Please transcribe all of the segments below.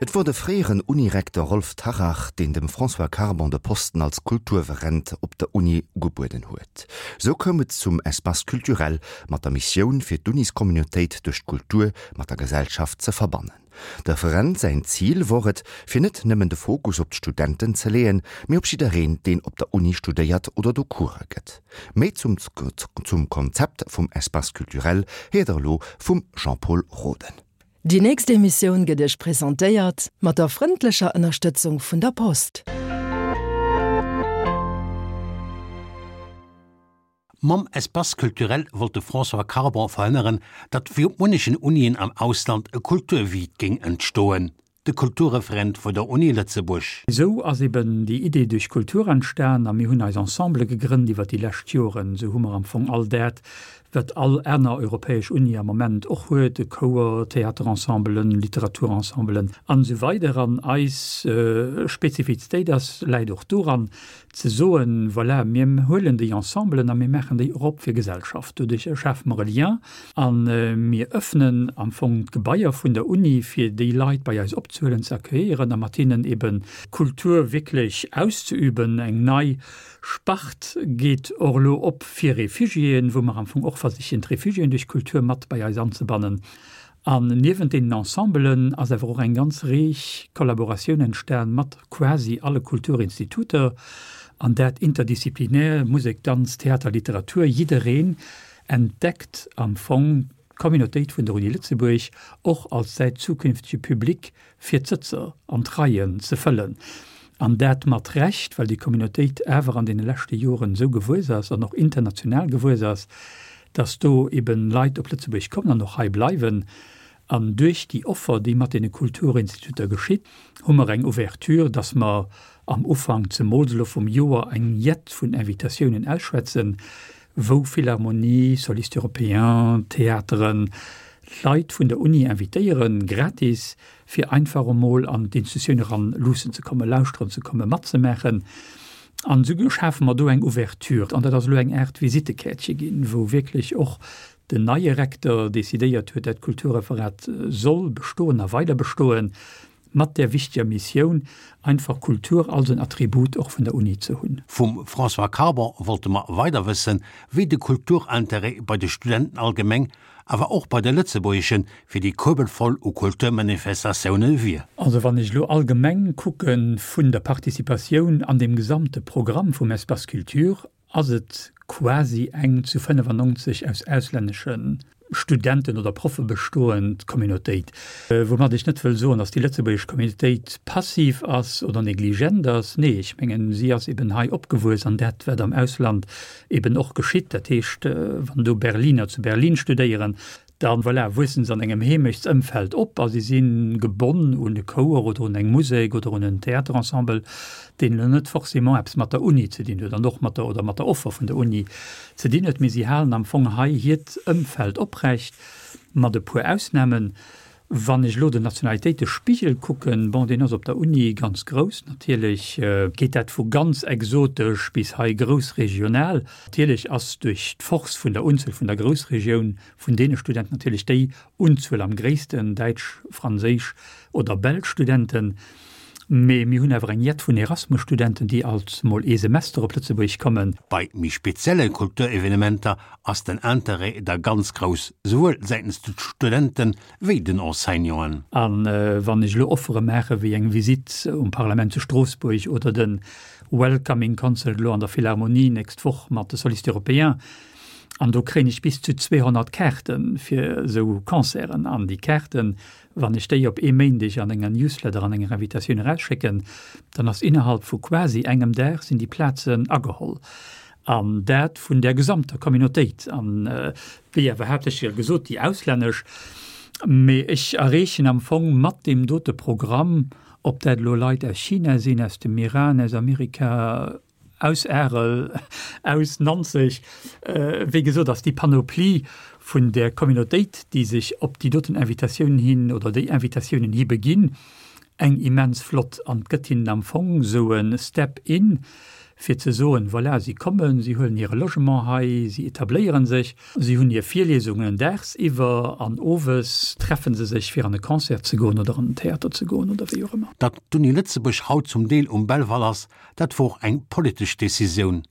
Et wor de fréieren Unirekter Rolf Tarrach, deen dem François Carbon de Posten als Kulturreferent op der Uni ugebueden huet. Sou koum et zum Espace culturel mat der Missioun, fir d'Uniscommunautéit duerch d'Kultur mat der Gesellschaft ze verbannen. De Referent säin Zil wor et, fir net nëmmen de Fokus op d'Studenten ze leeën, mee op jiddereen, deen op der Uni studéiert oder do Course gëtt. Méi zum zum Konzept vum Espace culturel héiert der elo vum Jean-Pol Roden. Déi nächst Emissioun gëtt Iech presentéiert mat der frëndlecher Ënnerstëtzung vun der Post. Mam Espace culturel wollt de François Carbon verhënneren, datt wéi op munnechen Unien am Ausland e Kulturvide géing entstoen. De Kulturreferent vun der Uni Lëtzebuerg. Esou ass eben déi Idee duerch Kultur entstan a mir hunn eis Ensemble gegrënnt iwwer déi lescht Joren. Esou hu mer am Fong all dat, wat all aner europäesch Uni am Moment och huet, e Chouer, Theaterensemblen, Literaturensemblen an esou weider. An eis Spezifizitéit ass, läit och doran, ze soen, voilà, mir huelen déi Ensemblen a mir maachen déi och op fir Gesellschaft. Doduerch schafe mer e Lien a mir öffnen am Fong d'Gebaier vun der Uni, fir déi Leit bei eis opzehuelen, ze accueillieren a mat hinnen eben Kultur wierklech auszeüben. Eng nei Spart geet och elo op fir Refugiéen, wou mer am Fong och versichen, d'Refugiéen duerch Kultur mat bei eis anzebannen. An niewent deenen Ensembelen ass awer och eng ganz reeg Kollaboratioun entstan mat quasi alle Kulturinstituter, an dat interdisziplinär, Musek, Danz, Theater, Literatur, jiddereen entdeckt am Fong d'Communautéit vun der Uni Lëtzebuerg och als säi zukünftege Public fir d'Sëtzer an d'Reien ze fëllen. An dat mat Recht, well déi Communautéit awer an deene leschte Joren esou gewuess ass an och international gewuess ass, dass do eben Leit op Lëtzebuerg kommen an och hei bleiwen. An duerch déi Offer, déi mat deene Kulturinstituter geschitt, hu mer eng Ouverture, dass mer am Ufank, zemools elo vum Joer, eng Jett vun Invitatiounen ausschwätzen, wou Philharmonie, Solistes européens, Theateren, Leit vun der Uni invitéieren, gratis, fir einfach emol an d'Institutioun eran luussen ze kommen, lauschteren ze kommen, matzemaachen. An esou schafe mer do eng Ouverture. An dat ass elo eng Aart Visitekäertche ginn, wou wierklech och den neie Recteur decidéiert huet, dat Kulturreferat soll bestoen a weider bestoen, mat där wichteger Missioun, einfach Kultur als en Attribut och vun der Uni ze hunn. Vum François Carbon wollte mer weider wëssen, wéi de Kulturintérêt bei de Studenten allgemeng, awer och bei de Lëtzebuergeschen, fir déi Kuebel voll u Kulturmanifestatioune wier. Also wann ech elo allgemeng kucke vun der Participatioun an deem gesamte Programm vum Espace Culture, ass et quasi eng zu 95 aus auslännesche Studenten oder Proffe bestoend Communautéit. Woumat ech net wëll soen, datt déi lëtzebuergesch Communautéit passiv ass oder negligent ass. Nee, ech mengen, si ass eben hei opgewuess an dat, wat am Ausland eben och geschitt. Dat heescht, wann do Berliner zu Berlin studéieren, da voilà, wuessen se an engem Heemechtsëmfeld op a si si gebonn un e Chouer oder un eng Musek oder un en Theaterensemble, deen elo net forcément eppes mat der Uni ze dinn huet an och mat der oder mat der Offer vun der Uni ze dinn huet. Mee si halen am Fong hei hiert Ëmfeld oprecht, mat e puer Ausnamen. Wann ech elo den Nationalitéitespigel kucken, bon, deen ass op der Uni ganz grouss, natierlech geet dat vu ganz exotesch bis hei groussregional. Natierlech ass duerch d'Force vun der Unzuel vun der Groussregioun vun deene Studenten natierlech déi Unzuel am gréissten, däitsch, franséisch oder belsch Studenten. Mee mir hunn awer eng Jett vun Erasmus-Studenten, déi alt mol ee Semester op Lëtzebuerg kommen. Bei méi spezielle Kulturevenementer ass den Interêt da ganz grouss, souwuel säitens de Studente wéi den Enseignanten. A wann ech elo Offere maache wéi eng Visitt um Parlament zu Stroossbuerg oder de Welcoming Concert elo an der Philharmonie nächst Woch mat de Solistes Européens, an do kréien ech bis zu 200 Kaarte fir esou Concerten, an déi Kaarten, Wann ech déi op ee Méindeg an enger Newsletter, an enger Invitatioun erausschécken, dann ass innerhalb vu quasi engem Dag sinn déi Plazen ageholl. An dat vun der gesamter Communautéit. An wéi awer haaptsächlech jo gesot, déi auslännesch. Mee ech erreechen am Fong mat deem dote Programm, ob dat elo Leit aus China sinn, aus dem Iran, aus Amerika, Aus Arel, aus Nanzeg, wéi gesot, ass déi Panoplie vun där Communautéit, déi sech op déi doten Invitatioun hin oder déi Invitatiounen hi beginn, eng immens flott an gëtt hinnen am Fong esou e Step in. fir ze soen, voilà, si kommen, si huelen hire Logement hei, si etabléiere sech, si hunn hir Virliesungen dagsiwwer an owes treffe se sech, fir an e Concert ze goen oder an den Theater ze goen oder wéi och ëmmer. Datt d'Uni Lëtzebuerg haut zum Deel um Belval ass, dat wor och eng politesch Decisioun.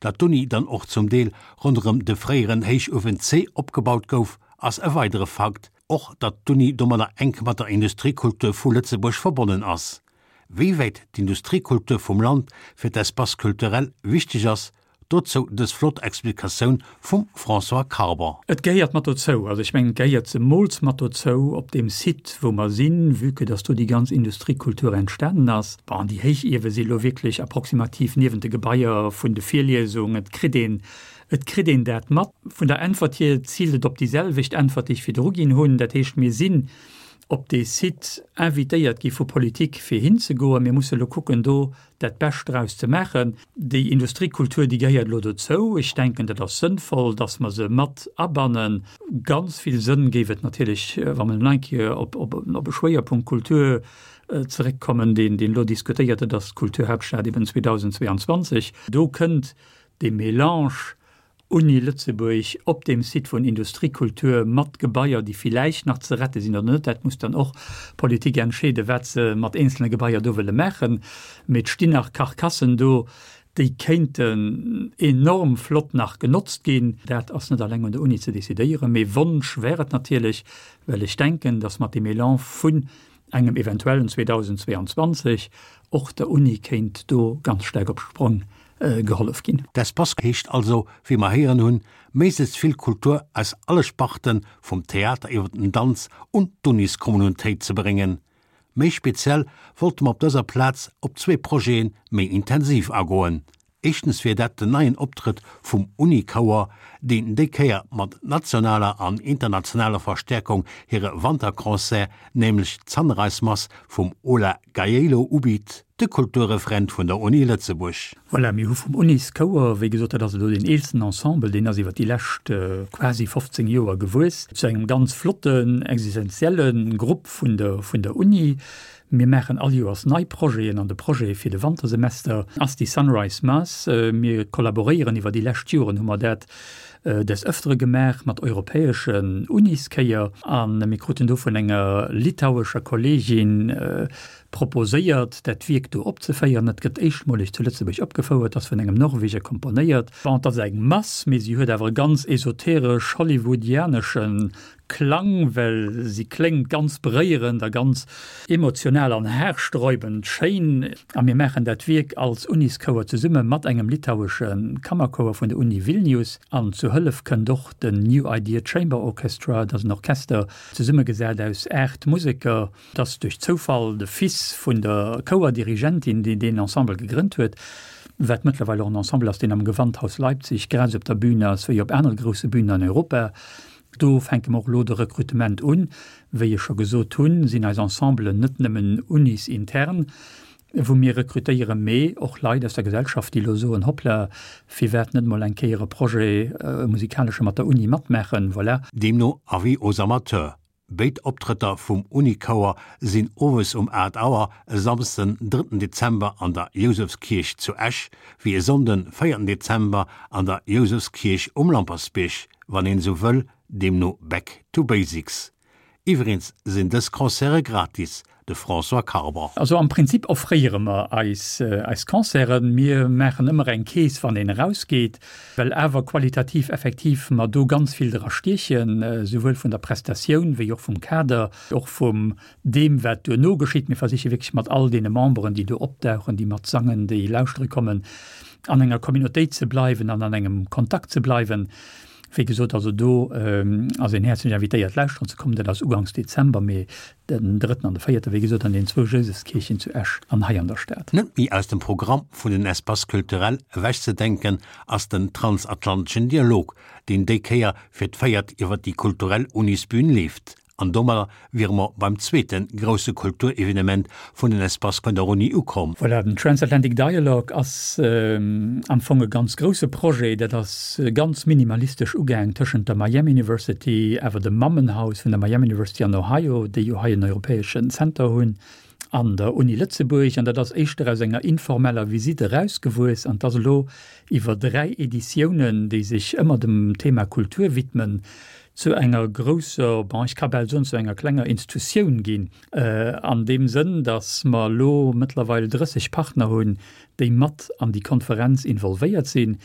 Datt d'Uni dann och zum Deel ronderëm de fréieren Héichuewen C opgebaut gouf, ass e weidere Fakt. Och datt d'Uni domadder enk mat der Industriekultur vu Lëtzebuerg verbonnen ass. Wéi wäit d'Industriekultur vum Land fir d'Espace culturel wichteg ass, dozou dës flott Explikatioun vum François Carbon. Et gehéiert mat dozou, also ech mengen, et gehéiert zemools mat dozou op deem Site, wou mer sinn, vue que dass do déi ganz Industriekultur entstanen ass. Bon, déi Héichiewe si lo wierklech approximativ niewent de Gebaier vun de Virliesungen. Et kritt een, et kritt een dat mat. Vun der Äntwert hier ziilt et op déi selwecht Äntwert, déi ech virdru ginn hunn. Dat heescht, mir sinn op dee Site invitéiert gi vu Politik fir hinzegoen. Mir musse lo kucken do dat Bescht draus ze maachen. Déi Industriekultur, déi gehéiert elo dozou. Ech denken, dat ass sënnvoll, dass mer se mat abannen. Ganz vill Sënn géif et natierlech, wa mer elo eng Kéier op op e Schwéierpunkt Kultur zeréckkommen, deen deen elo diskutéiert gëtt, ass d'Kulturhauptstad eben 2022. Do kënnt dee Mélange Uni Lëtzebuerg op deem Site vun Industriekultur mat Gebaier, déi villäicht nach ze rette sinn oder net, dat muss dann och d'Politik entscheeden, wat se mat eenzelne Gebaier do wëlle maachen, mee et stinn nach Carcassen do, déi kéinten enorm flott nach genotzt ginn. Dat ass net alleng un der Uni ze decidéieren, mee Wonsch wär et natierlech, well ech denken, datt mat deem Elan vun engem eventuellen 2022 och der Uni kéint do ganz staark op d'Sprong gehollef ginn. D'Espace heescht also, wéi mer héieren hunn, méiglechst vill Kultur aus alle Sparten, vum Theater iwwer den Danz, un d'Uniskommunautéit ze bréngen. Méi speziell wollte mer op dëser Plaz op zwee Projete méi intensiv agoen. Éischtens wier dat den neien Optrëtt vum Unikouer, deen déi Kéier mat nationaler an internationaler Verstäerkung hire Wanterconcert, nämlech d'Sunrise Mass vum Ola Gjeilo ubitt. De Kulturreferent vun der Uni Lëtzebuerg. Voilà, mir hu vum Unis-Chouer, wéi gesot, dat ass elo deen eelsten Ensemble, deen ass iwwer déi lescht quasi 15 Joer gewuess zu engem ganz flotten, existenzielle Grupp vun der, vun der Uni. Mir maachen all Joers nei Projeten an de Projet fir de Wantersemester ass déi Sunrise Mass. Mir kollaboréieren, iwwer déi lescht Joren hu mer dat des Ëftere gemaach mat europäeschen Unischéier a mir kruten do vun enger litauescher Kolleegin proposéiert, dat Wierk do opzeféieren. Et gëtt éischtmoleg zu Lëtzebuerg opgefouert, ass vun engem Norweger komponéiert. Bon, et ass eng Mass, mee si huet awer e ganz esoteresch hollywoodianesche Klang, well si kléngt ganz beréierend a ganz emotional an haarsträubend schéin. A mir maachen dat Wierk als Unischouer zesumme mat engem litauesche Kammerchouer vun der Uni Vilnius. An zu Hëllef kënnt och den New Idea Chamber Orchestra, dat ass en Orchester zesummegesat aus 8 Museker. Et ass duerch Zoufall de Fils vun der Chouerdirigentin, deen deen Ensemble gegrënnt huet, wat mëttlerweil och en Ensemble ass, deen am Gewandhaus Leipzig grad esou op der Bühn ass wéi op anere grousse Bühnen an Europa. Do fänke mer och elo de Rekrutement un. Wéi ech scho gesot hunn, sinn eis Ensemblen net nëmmen unisintern, wou mir rekrutéieren, mee och Leit aus der Gesellschaft, déi elo soen, Hoppla, firwat net mol eng Kéier e Projet, e musikalesche mat der Uni matmaachen? Voilà. Deemno Avis aux amateurs, Béid Optrëtter vum Unichouer sinn owes um 8 Auer e Samsden, drëtten Dezember an der Jousefskierch zu Esch, wéi e Sonnden, véierten Dezember an der Jousefskierch um Lampertsbierg, wann een esou wëll, deemno Back to Basics. Iwwereens sinn dës Concerte gratis, de François Carbon. Also am Prinzip offréiere mer eis eis Concerten. Mir maachen ëmmer eng Kees, wann een erausgeet, well awer qualitativ effektiv mer do ganz vill dra stiechen, souwuel vun der Prestatioun wéi och vum Kader, och vum deem wat duerno geschitt. Mir versiche wierklech mat all deene Memberen, déi do opdauchen, déi mat sangen, déi lauschtere kommen, an enger Communautéit ze bleiwen an an engem Kontakt ze bleiwen. Wéi gesot, also do ass een häerzlech invitéiert lauschteren ze kommen. Dat ass uganks Dezember, mee den drëtten an de véierte, wéi gesot, an den zwou Jousefskierchen zu Esch an hei an der Stad. Net méi aus dem Programm vun den Espaces culturels ewechzedenken ass den transatlanteschen Dialog, deen déi Kéier fir d'véiert iwwer déi kulturell Unisbün leeft. An domadder wiere mer beim zweete grousse Kulturevenement vun den Espaces vun der Uni ukomm. Voilà, den Transatlantic Dialogue ass am Fong e ganz grousse Projet. Dat ass ganz minimalistesch ugaang tëschent der Miami University, awer dem Mammenhaus vun der Miami University an Ohio, déi jo hei en europäeschen Center hunn. an der Uni Lëtzebuerg. An dat ass éischter aus enger informeller Visite erausgewuess an 't ass elo iwwer 3 Editiounen, déi sech ëmmer dem Thema Kultur widmen, zu enger grousser, bon, ech ka bal soen, zu enger klenger Institutioun ginn, an deem Sënn, datt mer elo mëttlerweil 30 Partner hunn, déi mat an déi Konferenz involvéiert sinn.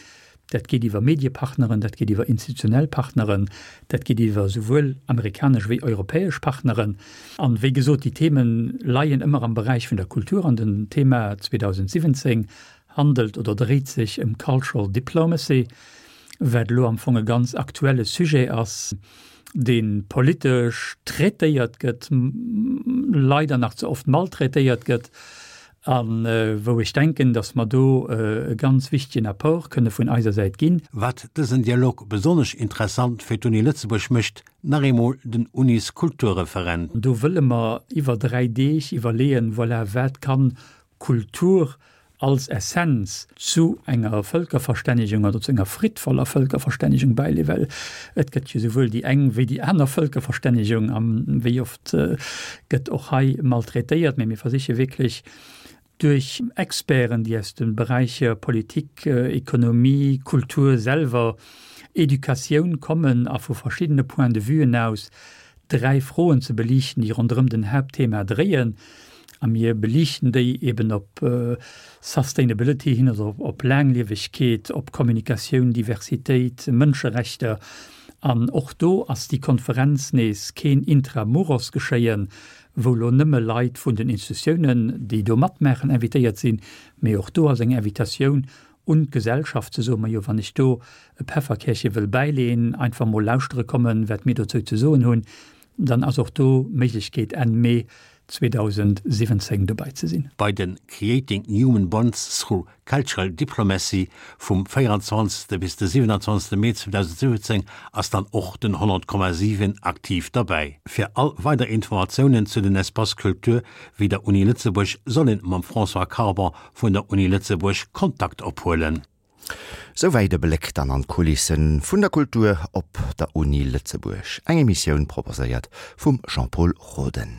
Dat geet iwwer Mediepartneren, dat geet iwwer institutionell Partneren, dat geet iwwer souwuel amerikanesch wéi europäesch Partneren. An, wéi gesot, déi Theme leien ëmmer am Beräich vun der Kultur an den Thema 2017 handelt oder dréit sech ëm Cultural Diplomacy, wat elo am Fong e ganz aktuelle Sujet ass, dee politesch traitéiert gëtt, leider nach ze oft maltraitéiert gëtt. A wou ech denken, datt mer do e ganz wichtegen Apport kënne vun eiser Säit ginn. Wat dësen Dialog besonnesch interessant fir d'Uni Lëtzebuerg mécht, nach eemol den Unis-Kulturreferent. Do wëlle mer iwwer 3 Deeg iwwerleeën, voilà, wat kann Kultur als Essenz zu enger Vëlkerverstännegung oder zu enger friddvoller Vëlkerverstännegung bäileeën, well et gëtt jo souwuel déi eng wéi déi aner Vëlkerverstännegung a wéi oft gëtt och hei maltraitéiert, mee mir versiche wierklech duerch Experten, déi aus de Beräicher Politik, Ekonomie, Kultur selwer, Educatioun kommen a vu verschiddene Point de vuen aus dräi Froen ze beliichten, déi ronderëm den Haaptthema dréien. A mir beliichten déi eben op Sustainability hin, also op Laangliewegkeet, op Kommunikatioun, Diversitéit, Mënscherechter. An och do ass déi Konferenz nees keen Intra-muros-Geschéien, wou lo nëmme Leit vun den Institutiounen, déi do matmaachen, invitéiert sinn, mee och do ass eng Invitatioun un d'Gesellschaft ze soen, majo, wann ech do e Pefferkärche wëll bäileen, einfach mol lauschtere kommen, wat mir dozou ze soen hunn, dann ass och do d'Méiglechkeet Enn Mee 2017 dobäi ze sinn. Bei de Creating Human Bonds through Cultural Diplomacy vum 24. Bis de 27. Mee 2017 ass dann och den 100,7 aktiv derbäi. Fir all weider Informatiounen zu den Espaces Culture wéi der Uni Lëtzebuerg soll een mam François Carbon vun der Uni Lëtzebuerg Kontakt ophuelen. Souwäit e Bléck dann an d'Kulissen vun der Kultur op der Uni Lëtzebuerg. Eng Emissioun proposéiert vum Jean-Pol Roden.